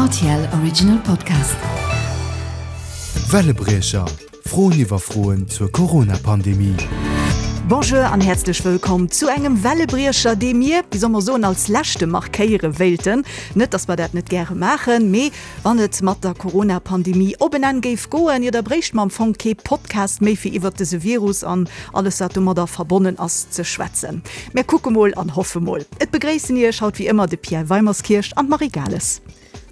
Rtl Original Podcast. Wellebriecher, Froen iwwer Froen zur Corona-Pandemie. Bonjour an häerzlech wëllkomm zu engem Wellebriecher, dee mir, wéi soll mer soen, als leschte markéiere wéilten. Net, dass mer dat net gäre maachen, mee wann et mat der Corona-Pandemie op en Enn géif goen, jo da bréichte mer am Fong kee Podcast méi fir iwwert dëse Virus an alles wat domadder verbonnen ass ze schwätzen. Mär kucke mol an hoffe mol. Et begréissen Iech haut wéi ëmmer de Pierre Weimerskirch an d'Marie Gales.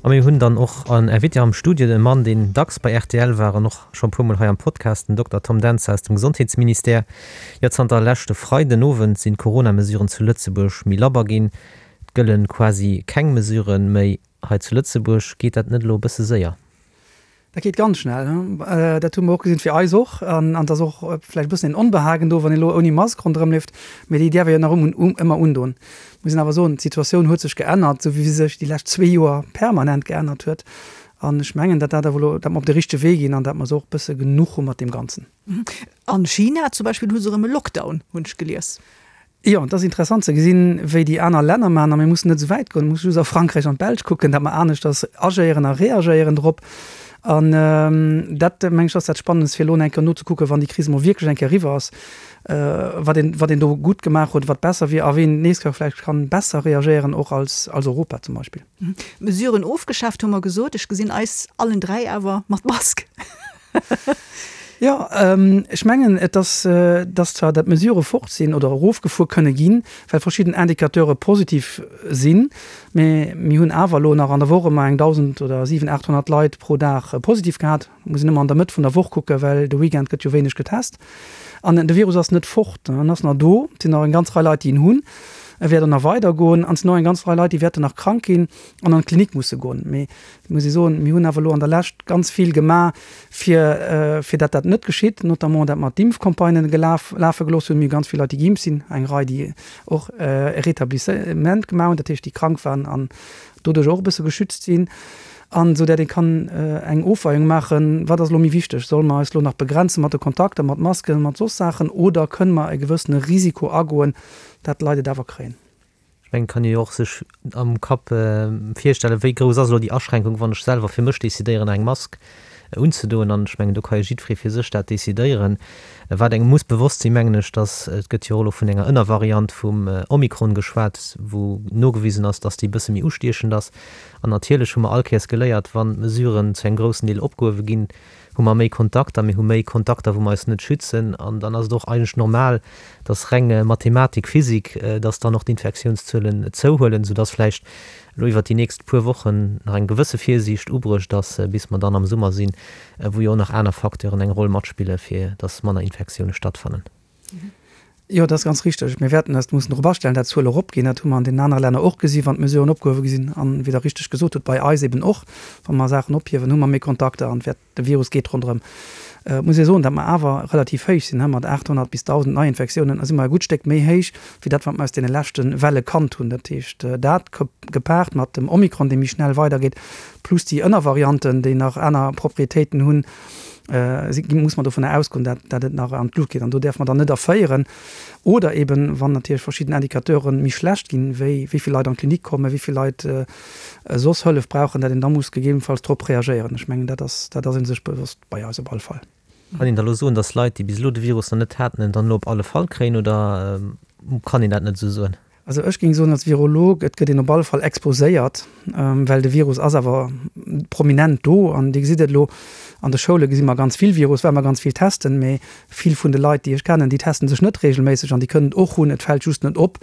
A mir hunn dann och en Invité am Studio, e Mann, deen dacks bei rtl war an och scho e puermol hei am Podcast, den Dokter Tom Dentzer aus dem Gesondheetsministère. Jo, zanter leschte Freiden Owend sinn d'Corona-Mesuren zu Lëtzebuerg méi labber ginn. Et gëlle quasi keng Mesuren méi hei zu Lëtzebuerg. Geet dat net elo e bësse séier? Dat geet ganz schnell. Dat hu mer och gesinn, fir eis och. An et ass och vläicht e bëssen een Onbehagen do, wann een elo ouni Mask ronderëmleeft. Mee déi däerf ee jo nach ëmmer undoen. Muss een awer soen, d'Situatioun huet sech geännert, esou wéi se sech déi lescht zwee Joer permanent geännert huet. An ech mengen, datt dat awer elo, datt mer op de richtege Wee ginn an datt mer se och e bësse genuch hu mat deem Ganzen. An China zum Beispill hu se erëm e Lockdown, hunn ech gelies. Jo, et ass interessant ze gesinn, wéi déi aner Länner maachen. A mir mussen net esou wäit goen, mir musse just a Frankräich an d'Belsch kucken, datt mer aneschters agéieren a reagéieren drop. An dat, meng ech, ass dat Spannendst, fir elo eng Kéier nozekucken, wann déi Kris emol wierklech eng Kéier eriwwer ass, wat een, wat een do gutt gemaach huet, wat besser wier a ween d'nächst Kéier vläicht kann besser reagéieren, och als, als Europa zum Beispill. Mesuren ofgeschaaft, hu mer gesot. Ech gesinn eis allen 3 awer mat Mask. Jo, ech mengen, et ass, dass zwar dat d'Mesurë fort sinn oder erofgefuer kënne ginn, well verschidden Indicateure positiv sinn, mä mir hunn awer elo nach an der Woch ëmmer eng 1.000 oder 700, 800 Leit pro Dag positiv gehat. Muss een ëmmer an der Mëtt vun der Woch kucken, well de Weekend gëtt jo wéineg getest. An de Virus ass net fort, en ass nach do. Et sinn nach eng ganz Rei Leit, déi en hunn. E wäert och nach weidergoen. An et sinn och eng ganz Rei Leit, déi wäerten nach krank ginn an an d'Klinik musse goen. Mee muss ee soen, mir hunn awer elo an der Lescht ganz vill gemaach, fir, fir dat dat net geschitt, notamment dat mer d'Impfcampagnen gelaf, lafe gelooss hunn. Mir hu ganz vill Leit, déi geimpft sinn, eng Rei, déi och e Rétablissement gemaach hunn, dat heescht, déi krank waren an doduerch och e bësse geschützt sinn, an esou dat ee kann eng Ofweiung maachen, wat ass elo méi wichteg, solle mer eis elo nach begrenze mat de Kontakter, mat Masken, mat soss Saachen, oder kënne mer e gewëssene Risiko agoen, dat d'Leit et awer kréien. Ech mengen, et kann ee jo och sech am Kapp virstellen, wéi grouss ass elo déi Aschränkung, wann ech selwer fir mech decidéieren, eng Mask unzedoen. An ech mengen, do ka jo jiddweree fir sech dat decidéieren. Wat engem muss bewosst sinn, mengen ech, dass, et gëtt jo och elo vun enger Ënnervariant vum Omikron geschwat, wou nogewisen ass, dass déi e bësse méi ustiechend ass. An natierlech hu mer all Kéiers geléiert, wann d'Mesuren zu engem groussen Deel opgehuewe ginn, hu mer méi Kontakter, mir hu méi Kontakter, wou mer eis net schützen an dann ass et och eigentlech normal, dass reng Mathematik, Physik, dass dann och d'Infektiounszuelen zouhuelen, soudass vläicht elo iwwert déi nächst puer Wochen nach eng gewësse Virsiicht ubruecht ass, bis mer dann am Summer sinn, wou jo och nach aner Facteuren eng Roll matspille fir dass manner Infektioune stattfannen. Jo, dat ass ganz richteg. Mir wäerten eis mussen drop astellen, dat d'Zuele eropginn. Dat hu mer an deenen anere Länner och gesi wann d'Mesuren opgehuewe gi sinn. An, wéi Der richteg gesot hutt, bei eis eben och. Wa mer Saachen ophiewen, hu mer méi Kontakter an wäert, de Virus geet ronderëm. Et muss ee soen, datt mer awer relativ héich sinn, mat 800 bis 1.000 Neiinfektiounen si mer e gutt Stéck méi héich wéi dat, wat mer aus deene leschte Welle kannt hunn. Dat heescht, dat gepaart mat dem Omikron, dee méi schnell weidergeet, plus déi Ënnervarianten, déi nach aner Proprietéiten hunn, muss mer dovunner ausgoen, dat dat et nach an d'Lut geet. An do däerfe mer dann net erféieren. Oder eben, wann natierlech verschidden Indicateure méi schlecht ginn, wéi wéi vill Leit an d'Klinik kommen, wéi vill Leit soss Hëllef brauchen, dat een da muss gegebenfalls drop reagéieren. Ech mengen, dat ass dat ass ee sech bewosst bei eis op alle Fall. Kann een da elo soen, datt Leit, déi bis elo de Virus nach net haten, en dann elo op alle Fall kréien, oder kann een dat net esou soen? Also ech géing soen als Virolog, et gëtt een op alle Fall exposéiert, well de Virus ass awer prominent do. An Dir gesitt et elo, an de Schoule gesi mer ganz vill Virus, well mer ganz vill testen. Mee vill vun de Leit, déi ech kennen, déi testen sech net reegelméisseg an déi kënnen et och hunn. Et fält just net op,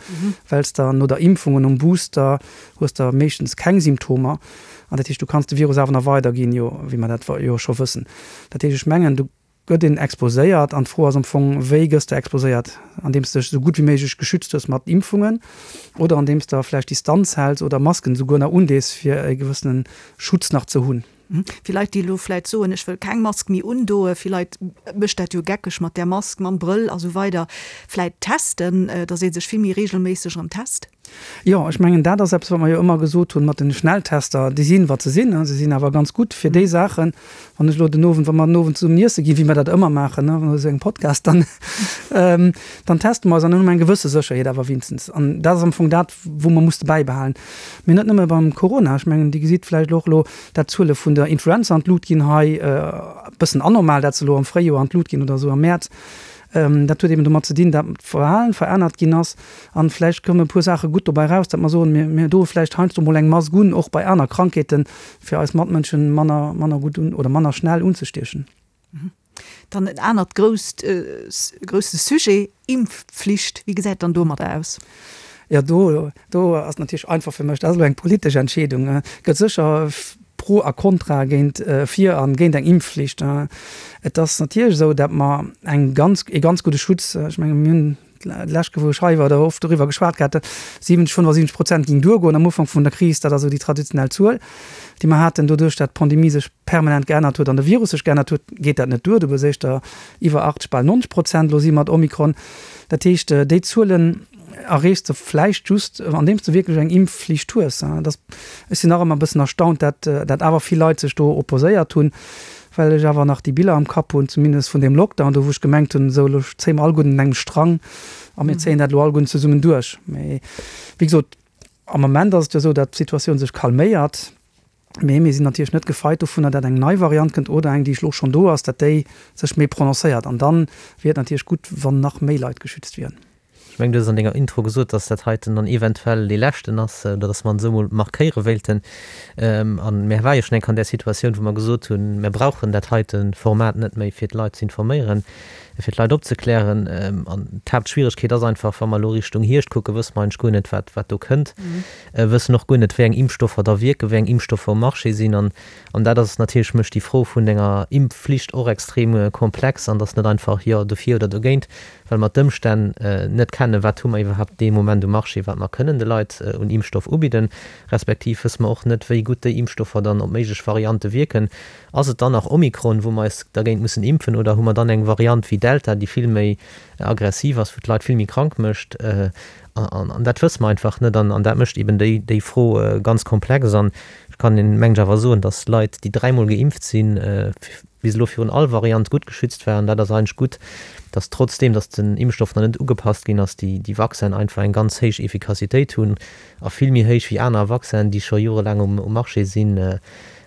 well s de no der Impfung und nom Booster hues de meeschtens keng Symptomer. An dat heescht, du kanns de Virus awer nach weiderginn, jo, wéi mer dat jo scho wëssen. Dat heescht, ech mengen, du gëtt een exposéiert an d'Fro ass am Fong, wéi gëss de exposéiert? Andeems de dech esou gutt wéi méiglech geschützt hues mat Impfungen oder andeems de vläicht Distanz häls oder Masken esouguer nach undees, fir e gewëssene Schutz nach ze hunn. Fir Leit, déi elo vläicht soen, ech wëll keng Mask méi undoen, fir Leit mécht dat jo geckeg mat där Mask, mam Brëll a sou weider, vläicht testen, datt ee sech vill méi reegelméisseg erëm test? Jo, ech mengen, dat ass eppes, wat mer jo ëmmer gesot hunn mat den Schnelltester. Déi sinn, wat se sinn. Se sinn awer ganz gutt fir déi Saachen. Wann ech elo den Owend, wa mer den Owend zesummen iesse ginn, wéi mer dat ëmmer maachen, wa mer esou engem Podcast, dann, dann teste mer eis an dann hu mer eng gewësse Sécherheet awer wéinstens. An dat ass am Fong dat, wou mer musse bäibehalen. Mee net nëmme beim Corona. Ech mengen, Dir gesitt vläicht och elo, dat d'Zuele vun der Influenza an d'Lut ginn hei, e bëssen anormal, dat se elo am Fréijoer an d'Lut ginn oder esou am Mäerz. Dat huet eben domat ze dinn, dat d'Verhalen verännert ginn ass. An vläicht kommen e puer Saache gutt dobäi raus, dat mer soen, mir, mir doe vläicht heiansdo mol eng Mask un, och bei aner Krankheeten, fir eis Matmënschen manner, manner gutt un oder manner schnell unzestiechen. Dann en anert grousst, grousse Sujet, Impfpflicht. Wéi gesäit dann domadder aus? Jo, do, do ass natierlech einfach fir mech, dat ass elo eng politesch Entscheedung. Et gëtt sécher Pro a Contra géint, fir a géint eng Impfflicht. Et ass natierlech esou, datt mer eng ganz, ee ganz gudde Schutz, ech menge mir hunn d'lescht Kéier, wou ech hei war, do oft doriwwer geschwat gehat, 70, 75 Prozent géing duergoen am Ufank vun der Kris. Dat ass esou déi traditionell Zuel, déi mer haten. Doduerch, datt d'Pandemie sech permanent geännert huet an de Virus sech geännert huet, geet dat net duer. Du hues éischter iwwer 80, bal 90 Prozent elo si mat Omikron. Dat heescht, déi Zuelen erreechs de vläicht just, andeems de wierklech eng Impfflicht hues. Dat, ech sinn nach ëmmer e bëssen erstaunt, dat dat awer vill Leit sech do opposéiert hunn, well ech awer nach déi Biller am Kapp hunn, zumindest vun deem Lockdown do, wou ech gemengt hunn, esou elo zéie mer alleguerten un engem Strang a mir zéien dat elo alleguerten zesummen duerch. Mee wéi gesot, am Moment ass et jo esou, datt d'Situatioun sech calméiert. Mee mir sinn natierlech net gefeit dovunner, dat eng nei Variant kënnt oder eng, déi elo schonn do ass, dat déi sech méi prononcéiert. An da wier et natierlech gutt, wann nach méi Leit geschützt wieren. Ech mengen, du hues an denger Intro gesot, dass dat heiten dann eventuell dee leschten ass oder dass mer en esou emol markéiere wéilten. A mir ware jo schonn eng Kéier an där Situatioun, wou mer gesot hunn, mir brauchen dat heite Format net méi, fir d'Leit ze informéieren, fir d'Leit opzeklären. An d'Haaptschwieregkeet ass einfach, wa mer elo Richtung Hierscht kucken, wësse mer eigentlech guer net, wat, wat do kënnt. Wëssen och guer net, wéi eng Impfstoffer da wierken, wéi eng Impfstoffer um Marché sinn. An, an dat ass natierlech, mécht déi Fro vun enger Impfflicht och extrem komplex an dass net einfach jo dofir oder dogéint, well mer d'Ëmstänn net kennen, wat hu mer iwwerhaapt dee Moment um Marché, wat mer kënnen de Leit un Impfstoff ubidden, respektiv wësse mer och net, wéi gutt déi Impfstoffer dann op méiglech Variante wierken. Ass et dann nach Omikron, wou mer eis dergéint mussen impfen, oder hu mer dann eng Variant wéi Delta, déi vill méi aggressiv ass, wou d'Leit vill méi krank mécht? An dat wësse mer einfach net. An dat mécht eben déi Fro ganz komplex. An ech kann, mengen ech, awer soen, datt Leit, déi dräimol geimpft sinn, bis elo virun all Variant gutt geschützt waren. Dat ass eigentlech gutt, datt trotzdeem, datt den Impfstoff nach net ugepasst ginn ass, déi Vaccinen einfach eng ganz héich Effikassitéit hunn a vill méi héich wéi aner Vaccinen, déi scho jorelaang um Marché sinn.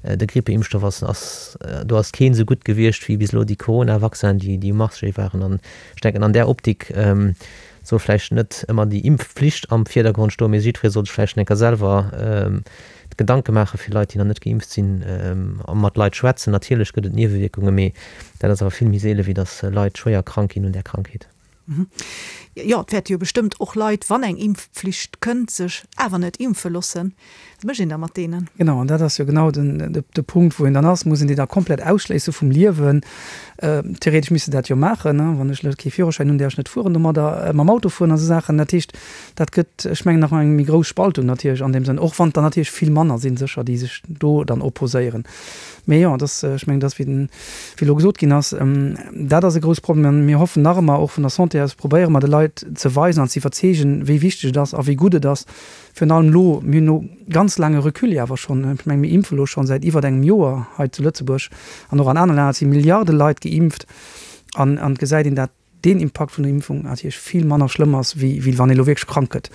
De Grippeimpfstoff ass, ass, do ass keen esou gutt gewiescht wéi bis elo déi Corona-Vaccinen, déi um Marché waren. An ech denken, an där Optik soll vläicht net ëmmer déi Impfpflicht am Virdergrond stoen, mee jiddweree soll sech vläicht eng Kéier selwer Gedanke maache fir Leit, déi nach net geimpft sinn, a mat Leit schwätzen. Natierlech gëtt et Niewewierkungen, mee dat ass awer vill méi seele wéi datt Leit schwéier krank ginn un där Krankheet. Jo, et wäerte jo bestëmmt och Leit, wann eng Impfpflicht kënnt, sech awer net impfe loossen. Wat mécht een da mat deenen? Genau, an dat ass jo genau den, de Punkt, wou een dann ass. Muss een déi da komplett ausschléisse vum Liewen? Theoretesch misst de dat jo maachen, ne? Wann ech elo kee Führerschäin hunn, däerf ech net fueren domadder, mam Auto fueren a sou Saachen. Dat heescht, dat gëtt, ech mengen, nach eng méi grouss Spaltung natierlech an deem Sënn, och wann et der natierlech vill manner sinn, sécher, déi sech do dann opposéieren. Mee jo, dass, ech mengen, dass, wéi den, wéi elo gesot ginn ass, dat ass e grouss Problem. An mir hoffen nach ëmmer, och vun der Santé aus probéiere mer de Leit ze weisen an ze iwwerzeegen, wéi wichteg et ass a wéi gutt et ass, Virun allem elo, mir hunn elo ganz laange Recul jo awer schonn, ech menge mir impfe elo schonn säit iwwert engem Joer hei zu Lëtzebuerg an och an anere Länner, et si Milliarde Leit geimpft an an et gesäit een, dat deen Impakt vun der Impfung natierlech vill manner schlëmm ass, wéi wéi wann ee elo wierklech krank gëtt.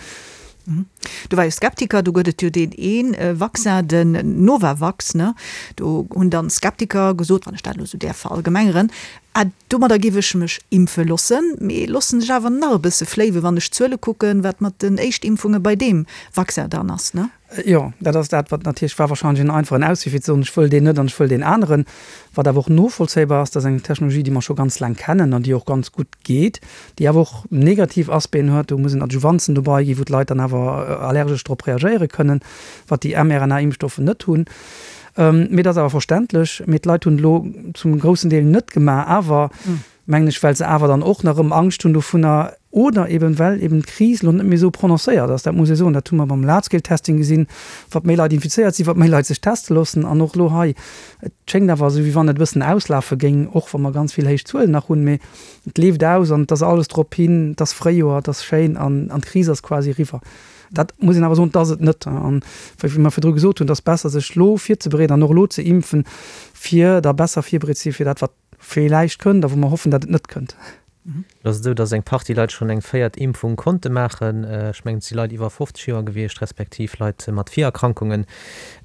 Do war jo Skeptiker, do gëtt et jo deen ee Vaccin, den Novavax, ne? Do hunn dann Skeptiker gesot, wann ech dat elo esou däerf verallgemengeren, Ah, domadder géif ech mech impfe lossen, mee lossen sech awer nach e bësse fléiwen, wann ech d'Zuele kucken, wat mat den Éischtimpfunge bei deem Vaccin dann ass, ne? Jo, dat ass dat, wat natierlech war wahrscheinlech en einfachen Auswee, fir ze soen, ech wëll deen net an ech wëll deen aneren. Wat awer och novollzéibar ass, dat ass eng Technologie, déi mer scho ganz laang kennen an déi och ganz gutt geet, déi awer och negativ Aspecten huet. Do mussen Adjuvanzen dobei ginn, wou d'Leit dann awer allergesch drop reagéiere kënnen, wat déi mRNA-Impfstoffe net hunn. Mee et ass awer verständlech. Mee d'Leit hunn et elo zum groussen Deel net gemaach, awer, mengen ech, well se awer dann och nach erëm Angscht hunn dovunner oder eben, well eben d'Kris elo net méi esou prononcéiert ass. Dat muss ee soen. Dat hu mer beim Large-Scale-Testing gesinn, wat méi Leit infizéiert sinn, wat méi Leit sech teste loossen. An och elo hei, et schéngt awer esou, wéi wann et e bëssen auslafe géing, och wa mer ganz vill héich Zuelen nach hunn. Mee et leeft aus an et ass alles drop hin, et ass Fréijoer, et ass schéin an d'Kris ass quasi eriwwer. Dat muss een awer soen, dat ass et net. An wéi mer virdru gesot hunn, et ass besser, sech elo virzebereeden an och elo ze impfen, fir da besser virbereet ze si fir dat, wat villäicht kënnt a wou mer hoffen, dat et net kënnt. Et ass esou, datt eng Partie Leit schonn eng véiert Impfung konnte maachen. Ech mengen, et si Leit iwwer 50 Joer gewiescht, respektiv Leit mat Virerkrankungen.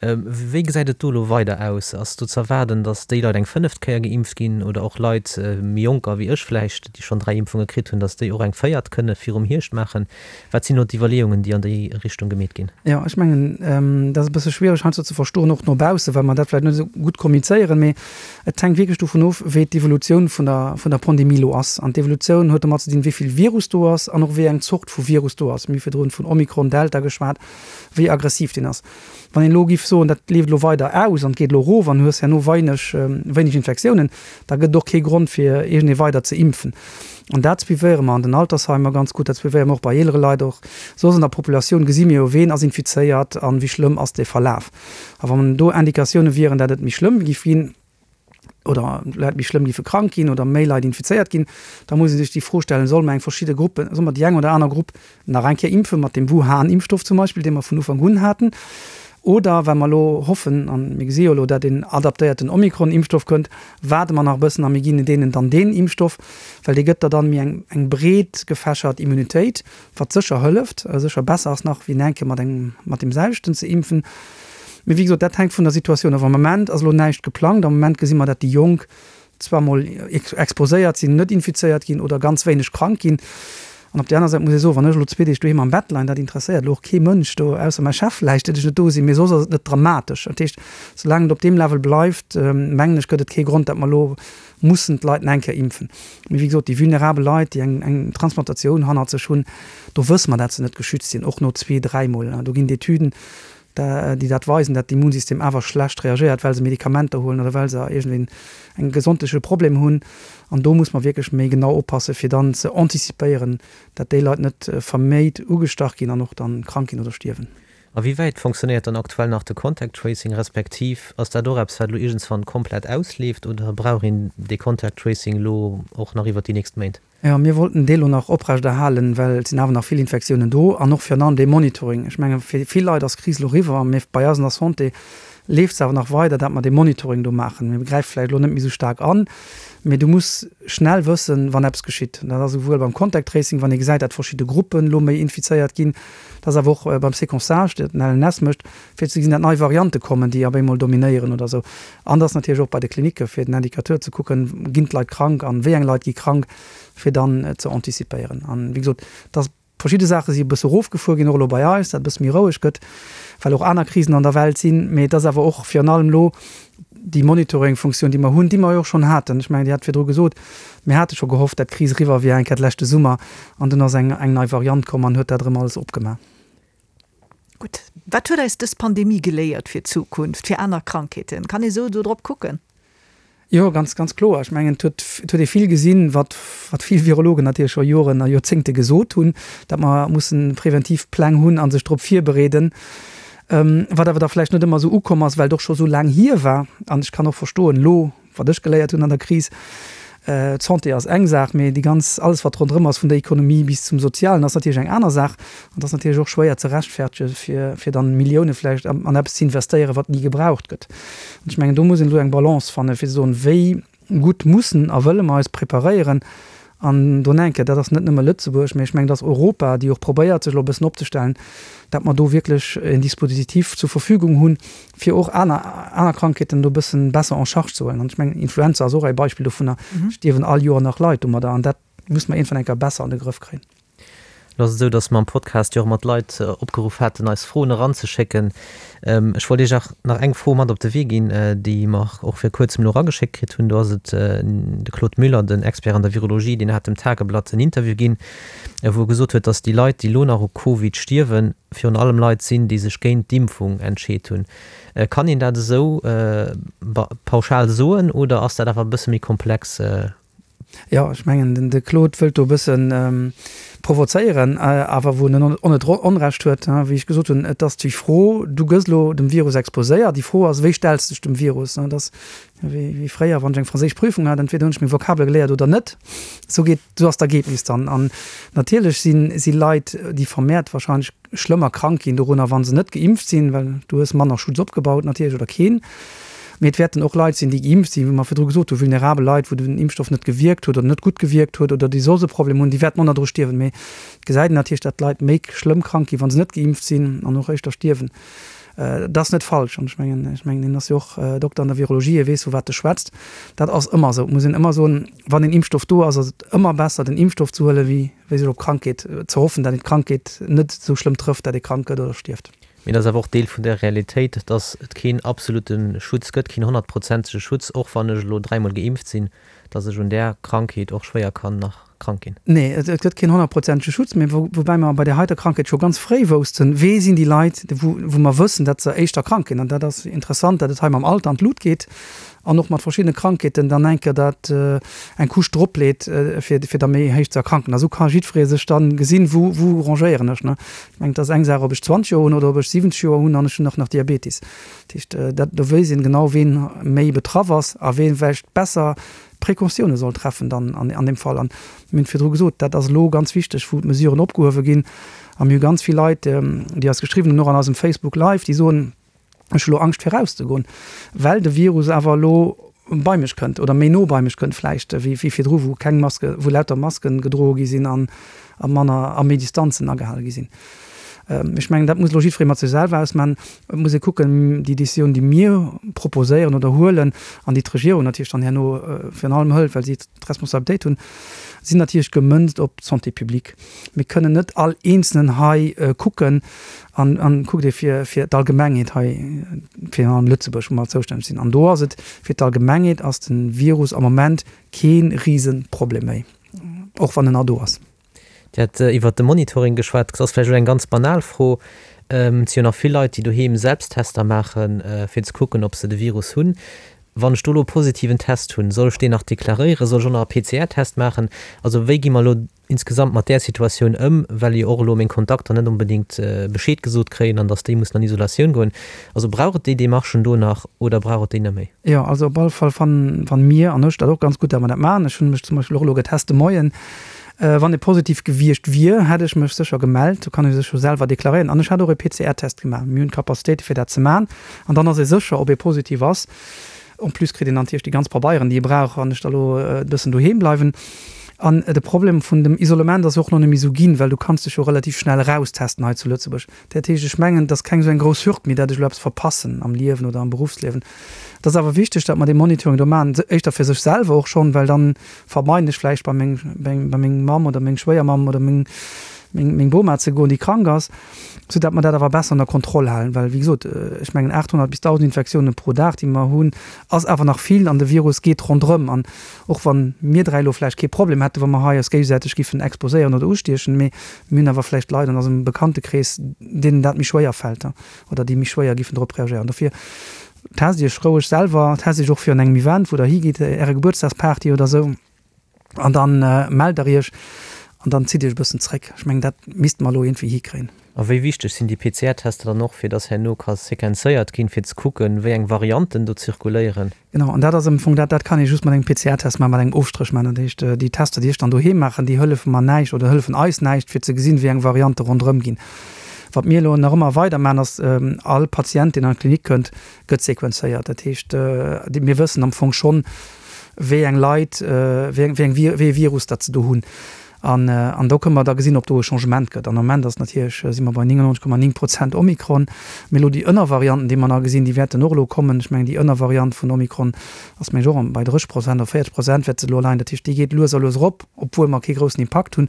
Wéi gesäit et do elo weider aus? Ass do ze erwaarden, datt déi Leit eng fënneft Kéier geimpft ginn oder och Leit, méi jonker wéi ech vläicht, déi schonn 3 Impfunge kritt hunn, datt déi och eng véiert kënne virum Hierscht maachen? Wat sinn do d'Iwwerleeungen, déi an déi Richtung gemeet ginn? Jo, ech mengen, dat ass e bësse schwiereg heiansdo ze verstoen, och no baussen, well mer dat vläicht net esou gutt kommunizéieren. Mee et hänkt wierklech dovun of, wéi d'Evolutioun vun der, vun der Pandemie elo ass. An d'Evolutioun huet domat ze dinn, wéi vill Virus do ass an och wéi eng Zort vu Virus do ass. Mir hu virdrun vun Omikron, Delta geschwat, wéi aggressiv deen ass. Wann een elo giff soen, dat leeft elo weider aus an et geet elo erof an du hues herno weineg, wéineg Infektiounen, da gëtt et och kee Grond fir iergendee weider ze impfen. An dat suivéiere mer an den Altersheimer ganz gutt, dat suivéiere mer och bei eelere Leit. Och soss an der Populatioun gesi mir jo, ween ass infizéiert an wéi schlëmm ass dee Verlaf. A wann do Indikatioune wieren, dat et méi schlëmm giff ginn, oder Leit méi schlëmm giffe krank ginn oder méi Leit infizéiert ginn, da muss ee sech déi Fro stellen, Solle mer eng verschidde Gruppen, solle mer déi eng oder aner Grupp nach eng Kéier impfen, mat deem Wuhan-Impfstoff zum Beispill, dee mer vun Ufank un haten, oder, well mer elo hoffen, a mir gesi jo elo, dat een adaptéierten Omikron-Impfstoff kënnt, waarde mer nach e bëssen a mir ginn deenen dann deen Impfstoff, well dee gëtt der dann méi eng, eng breet gefächert Immunitéit, wat sécher hëlleft, sécher besser ass nach, wéi en eng Kéier mat engem, mat deem selwechten ze impfen. Mee wéi gesot, dat hänkt vun der Situatioun of. Am Moment ass elo näischt geplangt. Am Moment gesi mer, dat déi Jonk zwar mol exposéiert sinn, net infizéiert ginn oder ganz wéineg krank ginn. An op där aner Säit muss ee soen, wann ech elo zwee Deeg doheem am Bett leien, dat interesséiert elo och kee Mënsch do, ausser mäi Chef vläicht, datt ech net do sinn, mee soss ass et net dramatesch. Dat heescht, soulaang et op deem Level bleift, mengen ech, gëtt et kee Grond, datt mer elo mussen d'Leit nach eng Kéier impfen. Mee wéi gesot, déi vulnerabel Leit, déi eng eng Transplantatioun hannert sech hunn, do wësse mer, dat se net geschützt sinn, och no zwee, dräimol. Do ginn d'Etüden, déi dat weisen, dat d'Immunsystem awer schlecht reagéiert, well se Medikamenter huelen oder well se iergendwéi en gesondheetleche Problem hunn. An do muss mer wierklech méi genau oppassen, fir dann ze anticipéieren, dat déi Leit net verméit ugestach ginn an och dann krank ginn oder stierwen. A wéi wäit fonctionnéiert dann aktuell nach de Contact Tracing, respektiv ass dat och eppes, wat elo iergendswann komplett ausleeft oder brauch een dee Contact Tracing elo och nach iwwert déi nächst Méint? Jo, mir wollten dee lo nach oprechterhalen, well et sinn awer nach vill Infektiounen do an och virun allem dee Monitoring. Ech menge fir vill Leit ass d'Kris elo eriwwer, mee bei eis an der Santé leeft se awer nach weider, dat mer dee Monitoring do maachen. Mir gräife vläicht elo net méi esou staark an, mee du muss schnell wëssen, wann eppes geschitt. Dat ass esouwuel beim Contact Tracing, wann ee gesäit, dat verschidde Gruppen elo méi infizéiert ginn, dat ass awer och beim Séquençage, dat den LNS mécht, fir ze gesinn, dat nei Variante kommen, déi op eemol dominéieren oder esou. An dat ass natierlech och bei de Klinicke fir den Indicateur ze kucken, ginn d'Leit krank an wéi eng Leit gi krank, fir dann ze anticipéieren. An wéi gesot, dass verschidde Saache si e bësse erofgefuer ginn, och elo bei eis, dat e bësse méi roueg gëtt, well och aner Krisen an der Welt sinn. Mee et ass awer och virun allem elo déi Monitoring-Funktioun, déi mer hunn, déi mer jo och schonn haten. Ech mengen, Dir hat virdru gesot, mir hate scho gehofft, dat d'Kris eriwwer wier eng Kéier d'leschte Summer, an dunn ass eng nei Variant komm an huet dat erëm alles opgemaach. Gutt, wat huet eis dës Pandemie geléiert fir d'Zukunft, fir aner Krankheeten? Kann ee sou do drop kucken? Jo, ganz, ganz kloer. Ech mengen, et huet, et huet ee vill gesinn, wat, wat vill Virologen natierlech scho Joren a Joerzéngte gesot hunn, datt mer mussen preventiv Pläng hunn a sech drop virbereeden, wat awer da vläicht net ëmmer esou ukomm ass, well et och scho sou laang hier war. An ech kann och verstoen, elo Wat ech geléiert hunn an der Kris, d'Santé ass eng Saach, mee déi ganz, alles wat ronderëm ass, vun der Ekonomie bis zum Sozialen, ass natierlech eng aner Saach. An et ass natierlech och schwéier ze rechtfertege fir, fir dann Millioune vläicht an eppes ze investéieren, wat ni gebraucht gëtt. An ech mengen, do muss een elo eng Balance fannen, fir ze soen, wéi gutt mussen a wëlle mer eis preparéieren An do enke, dat ass net nëmme Lëtzebuerg, mä ech mengen, dat ass Europa, déi och probéiert, sech elo e bëssen opzestellen, dat mer do wierklech en Dispositif zur Verfügung hunn, fir och aner, aner Krankheeten do e bëssen besser en charge ze huelen. An ech mengen, Influenza ass och e Beispill dovunner, stierwen all Joer nach Leit domadder. An dat muss mer iergendwann eng Kéier besser an de Grëff kréien. Lo ass et esou, datt mer am Podcast jo och mat Leit opgeruff haten, eis Froen eranzeschécken. Ech wollt Iech och nach eng Fro mat op de Wee ginn, déi mer och vir kuerzem elo erageschéckt kritt hunn. Do ass et de Claude Müller, den Expert an der Virologie, deen hat dem Tageblatt en Interview ginn, wou e gesot huet, datt déi Leit, déi elo nach u Covid stierwen, virun allem Leit sinn, déi sech géint d'Impfung entscheet hunn. Kann een dat esou pauschal soen oder ass dat awer e bësse méi komplex? Jo, ech mengen, de Claude wëllt do e bësse provozéieren, awer wou en och net Onrecht huet. Wéi ech gesot hunn, et ass déi Fro, du gëss elo dem Virus exposéiert, déi Fro ass, wéi stells de dech dem Virus? Et ass wéi fréier, wann ech eng franséisch Prüfung hat, entweder hunn ech meng Vokabele geléiert oder net. Esou geet, esou ass d'Ergebnis dann. An natierlech si Leit, déi vermehrt wahrscheinlech schlëmmer krank ginn dorunner, wa se net geimpft sinn, well du hues manner Schutz opgebaut natierlech oder keen. Mee et wäerten och Leit sinn, déi geimpft sinn, wéi mer virdru gesot hunn, vulnerabel Leit, wou den Impfstoff net gewierkt huet oder net gutt gewierkt huet oder déi soss e Problem hunn, déi wäerten och nach dru stierwen. Mee et gesäit een natierlech, datt d'Leit méi schlëmm krank ginn, wa se net geimpft sinn an och éischter stierwen. Dat ass net falsch an ech mengen, ech mengen, hien ass jo och Dokter an der Virologie, hie weess, vu wat e schwätzt. Dat ass ëmmer esou. Et muss een ëmmer soen, wann een Impfstoff do ass, ass et ëmmer besser, den Impfstoff ze huelen, wéi wéi sech op Krankheet ze hoffen, dat een d'Krankheet net esou schlëmm trëfft, dat ee krank gëtt oder stierft. Mee et ass awer och Deel vun der Realitéit, dass et keen absolute Schutz gëtt, keen honnertprozentege Schutz, och wann ech elo dräimol geimpft sinn, dass ech un där Krankheet och schwéier kann nach krank ginn. Nee, et gëtt keen honnertprozentege Schutz, mee woubäi mer bei där heiter Krankheet scho ganz fréi woussten, wee sinn déi Leit, wou mer wëssen, dat se éischter krank ginn. An dat ass interessant, dat et hei mam Alter an d'Lut geet. an och mat verschiddene Krankheeten dann eng Kéier dat eng Couche drop leet, fir fir da méi héich ze erkranken. A sou ka jiddweree sech dann gesinn, wou wou rangéieren ech, ne. Ech mengen, et ass eng Saach, ob ech 20 Joer hunn oder ob ech 70 Joer hunn an ech hunn och nach Diabetis. Dat heescht, dat do wéisst een genau, ween méi betraff ass a wee vläicht besser Precautioune soll treffen dann an an deem Fall. An mir hunn et virdru gesot, dat ass elo ganz wichteg, wou d'Mesuren opgehuewe ginn. A mir hu ganz vill Leit, déi eis geschriwwen hunn, och an eisem Facebook Live, déi soen, Ech hu lo Angscht fir rauszegoen, well de Virus awer elo bei mech kënnt oder méi no bei mech kënnt vläicht wéi virdru, wou keng Maske, wou lauter Masken gedroe gi sinn an a manner a méi Distanzen agehale gi sinn. Ech mengen, dat muss elo jiddweree mat sech selwer ausmachen. Et muss ee kucken, déi Décisioun, déi mir proposéieren oder huelen an déi d'Regierung natierlech dann herno virun allem hëlt, well si d'Responsabilitéit hunn, sinn natierlech gemënzt op d'Santé publique. Mir kënnen net all Eenzelnen hei kucken, An, an kuckt ee fir, fir d'Allgemengheet hei, virun allem Lëtzebuerg, wou mer zoustänneg sinn, an do ass et, fir d'Allgemengheet ass de Virus am Moment kee Riseproblem méi, och wann en nach do ass. Dir hat iwwert de Monitoring geschwat. Dat ass vläicht elo eng ganz banal Fro. Et si jo nach vill Leit, déi doheem Selbsttester maachen, fir ze kucken, ob se de Virus hunn. Wann ech do elo e positiven Test hunn, soll ech deen nach deklaréieren? Soll ech och nach e PCR-Test maachen? Also wéi gi mer elo insgesamt mat där Situatioun ëm, well jo och elo meng Kontakter net onbedéngt Bescheed gesot kréien an datt déi mussen an Isolatioun goen. Also brauch et déi Demarchen do nach oder brauch et déi net méi? Jo, also op alle Fall fanne mir an ech dat och ganz gutt, datt mer dat maachen. Ech hunn mech zum Beispill och elo getest de Moien. Wann e positiv gewiescht wier, hätt ech mech sécher gemellt. Do kann ee sech jo selwer deklaréieren. An ech hat och e PCR-Test gemaach. Mir hunn d'Capacitéite fir dat ze maachen an dann ass ee sécher, ob ee positiv ass. En plus kritt een dann natierlech déi ganz Pabeieren, déi ee brauch, wann ech da lo e bëssen doheem bleiwen. An de Problem vun dem Isolement ass jo och nach net méi esou ginn, well du kanns dech jo relativ schnell eraustesten hei zu Lëtzebuerg. Dat heescht, ech mengen, et ass keng esou eng grouss Hürd méi, dat ech elo eppes verpassen am Liewen oder am Beruffsliewen. Et ass awer wichteg, datt mer dee Monitoring do maachen, éischter fir sech selwer och schonn, well dann vermeiden ech vläicht bei meng, bei meng Mamm oder meng Schwéiermamm oder meng, meng, meng Boma ze goen, déi krank ass, sou dat mer dat awer besser ënner Kontroll halen. Well, wéi gesot, ech mengen 800 bis 1.000 Infektiounen pro Dag, déi mer hunn, ass awer nach vill an de Virus geet ronderëm. An och wa mir dräi elo vläicht kee Problem hätten, wa mer hei eis géigesäiteg giffen exposéieren oder ustiechen, mee mir hunn awer vläicht Leit an eisem Bekanntekrees, deenen dat méi schwéier fält oder déi méi schwéier giffen drop reagéieren. Dofir test Iech roueg selwer, test Iech och virun engem Event, wou Der higitt, Äre Gebuertsdagsparty oder esou. An dann mellt der iech an dann zitt iech e bëssen zréck. Ech mengen, dat misste mer elo iergendwéi hikréien. A wéi wichteg sinn déi PCR-Tester dann och, fir dass herno ka sequenzéiert ginn, fir ze kucken, wéi eng Varianten do zirkuléieren? Genau, an dat ass am Fong dat, dat kann ee just mat engem PCR-Test maachen, mat engem Ofstréch maachen. Dat heescht, déi Tester, déi ech dann doheem maachen, déi hëllefe mer näischt oder hëllefen eis näischt, fir ze gesinn, wéi eng Variante ronderëm ginn. Wat mir elo nach ëmmer weider maachen, ass, all Patient, deen an d'Klinik kënnt, gëtt sequenzéiert. Dat heescht, mir wëssen am Fong schonn, wéi eng Leit, wéi eng, wéi ee Virus dat se do hunn. An, an do kënne mer da gesinn, ob do e Changement gëtt. An am Moment ass natierlech, si mer bei 99,9 Prozent Omikron. Mee elo déi Ënnervarianten, déi mer nach gesinn, déi wäerten och elo kommen. Ech mengen, déi Ënnervariant vun Omikron ass, mengen ech, och bei 30 Prozent oder 40 Prozent wäert se elo leien. Dat heescht, déi geet lues a lues erop, obwuel mer kee groussen Impakt hunn.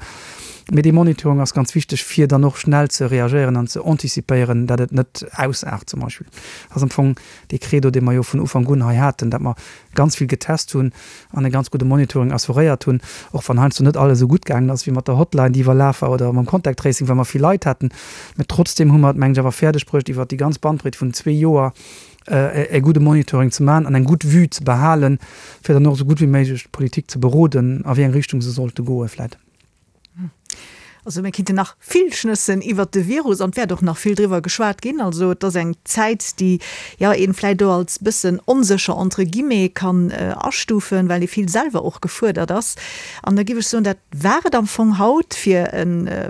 Mee dee Monitoring ass ganz wichteg, fir dann och schnell ze reagéieren an ze anticipéieren, dat et net ausaart zum Beispill. Dat ass am Fong dee Credo, dee mer jo vun Ufank un hei haten, dat mer ganz vill getest hunn an e ganz gudde Monitoring assuréiert hunn, och wann heiansdo net alles esou gutt gaangen ass wéi mat der Hotline, déi iwwerlaf war, oder mam Contact Tracing, well mer vill Leit haten. Mä trotzdem hu mer et, mengen ech, awer fäerdeg bruecht, iwwert déi ganz Bandbreet vun zwee Joer e gudde Monitoring ze maachen an eng gutt Vue ze behalen, fir dann och esou gutt wéi méiglech d'Politik ze beroden, a wéi eng Richtung se sollte goe vläicht. Also mir kinnten nach vill schnëssen iwwert de Virus an et wäert och nach vill driwwer geschwat ginn. Also et ass eng Zäit, déi jo een vläicht och als bëssen onsécher entre guillemets kann astufen, well ee vill selwer och gefuerdert ass. An da giff ech soen, dat war et am Fong haut fir e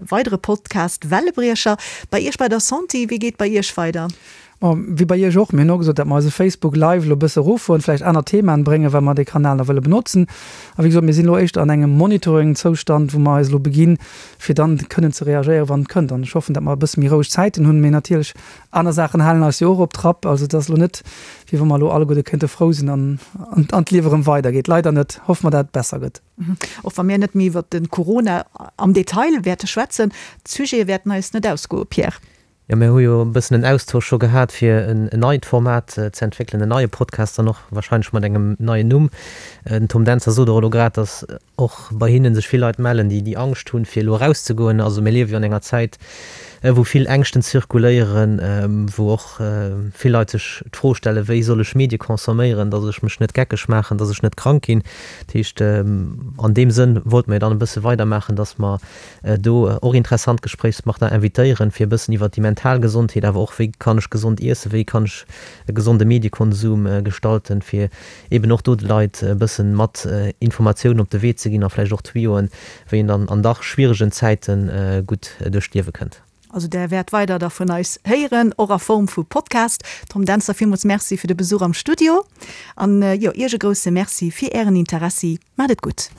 weidere Podcast Wellebriecher. Bei Iech bei der Santé, wéi geet bei Iech weider? Bon, wéi bei Iech och, mir hunn och gesot, datt mer eise Facebook Live elo e bësse eroffueren, vläicht aner Themaen bréngen, well mer dee Kanal nach wëlle benotzen. A wéi gesot, mir sinn elo éischter an engem Monitoring-Zoustand, wou mer eis elo beginn, fir dann kënnen ze reagéieren, wann et kënnt. An ech hoffen, datt mer e bësse méi roueg Zäiten hunn. Mee natierlech, aner Saachen halen eis jo och op Trapp. Also et ass elo net, wéi wa mer elo alleguerte kéinte frou sinn an an d'Liewe erëm weidergeet. Leider net. Hoffe mer, datt et besser gëtt. Och wa mir net méi iwwert de Corona am Detail wäerte schwätzen, d'Sujete wäerten eis net ausgoen, Pierre. Jo, mir hu jo e bëssen en Austausch scho gehat, fir en neit Format ze entwéckelen, en neie Podcast dann och wahrscheinlech mat engem neien Numm. Den Tom Dentzer sot och elo grad, datt och bei hinne sech vill Leit mellen, déi déi Angscht hunn, fir elo erauszegoen. Also mir liewe jo an enger Zäit, wou vill Ängschten zirkuléieren, wou och vill Leit sech d'Fro stellen, wéi soll ech Medie consomméieren, datt ech mech net geckeg maachen, datt ech net krank ginn. Dat heescht, an deem Sënn wollte mir dann e bësse weidermaachen, datt mer do och interessant Gespréichspartner invitéieren, fir e bëssen iwwert déi mental Gesondheet, awer och wéi kann ech gesond iessen, wéi kann ech e gesonde Mediekonsum gestalten, fir eben och do de Leit e bëssen mat Informatiounen op de Wee ze ginn a vläicht och Tuyauxen, wéi een dann an dach schwieregen Zäite gutt duerch d'Liewe kënnt. Also där wäert weider da vun eis héieren, och a Form vu Podcast. Tom Dentzer, villmools Merci fir de Besuch am Studio an jo, Iech e grousse Merci fir Ären Interessi. Maat et gutt.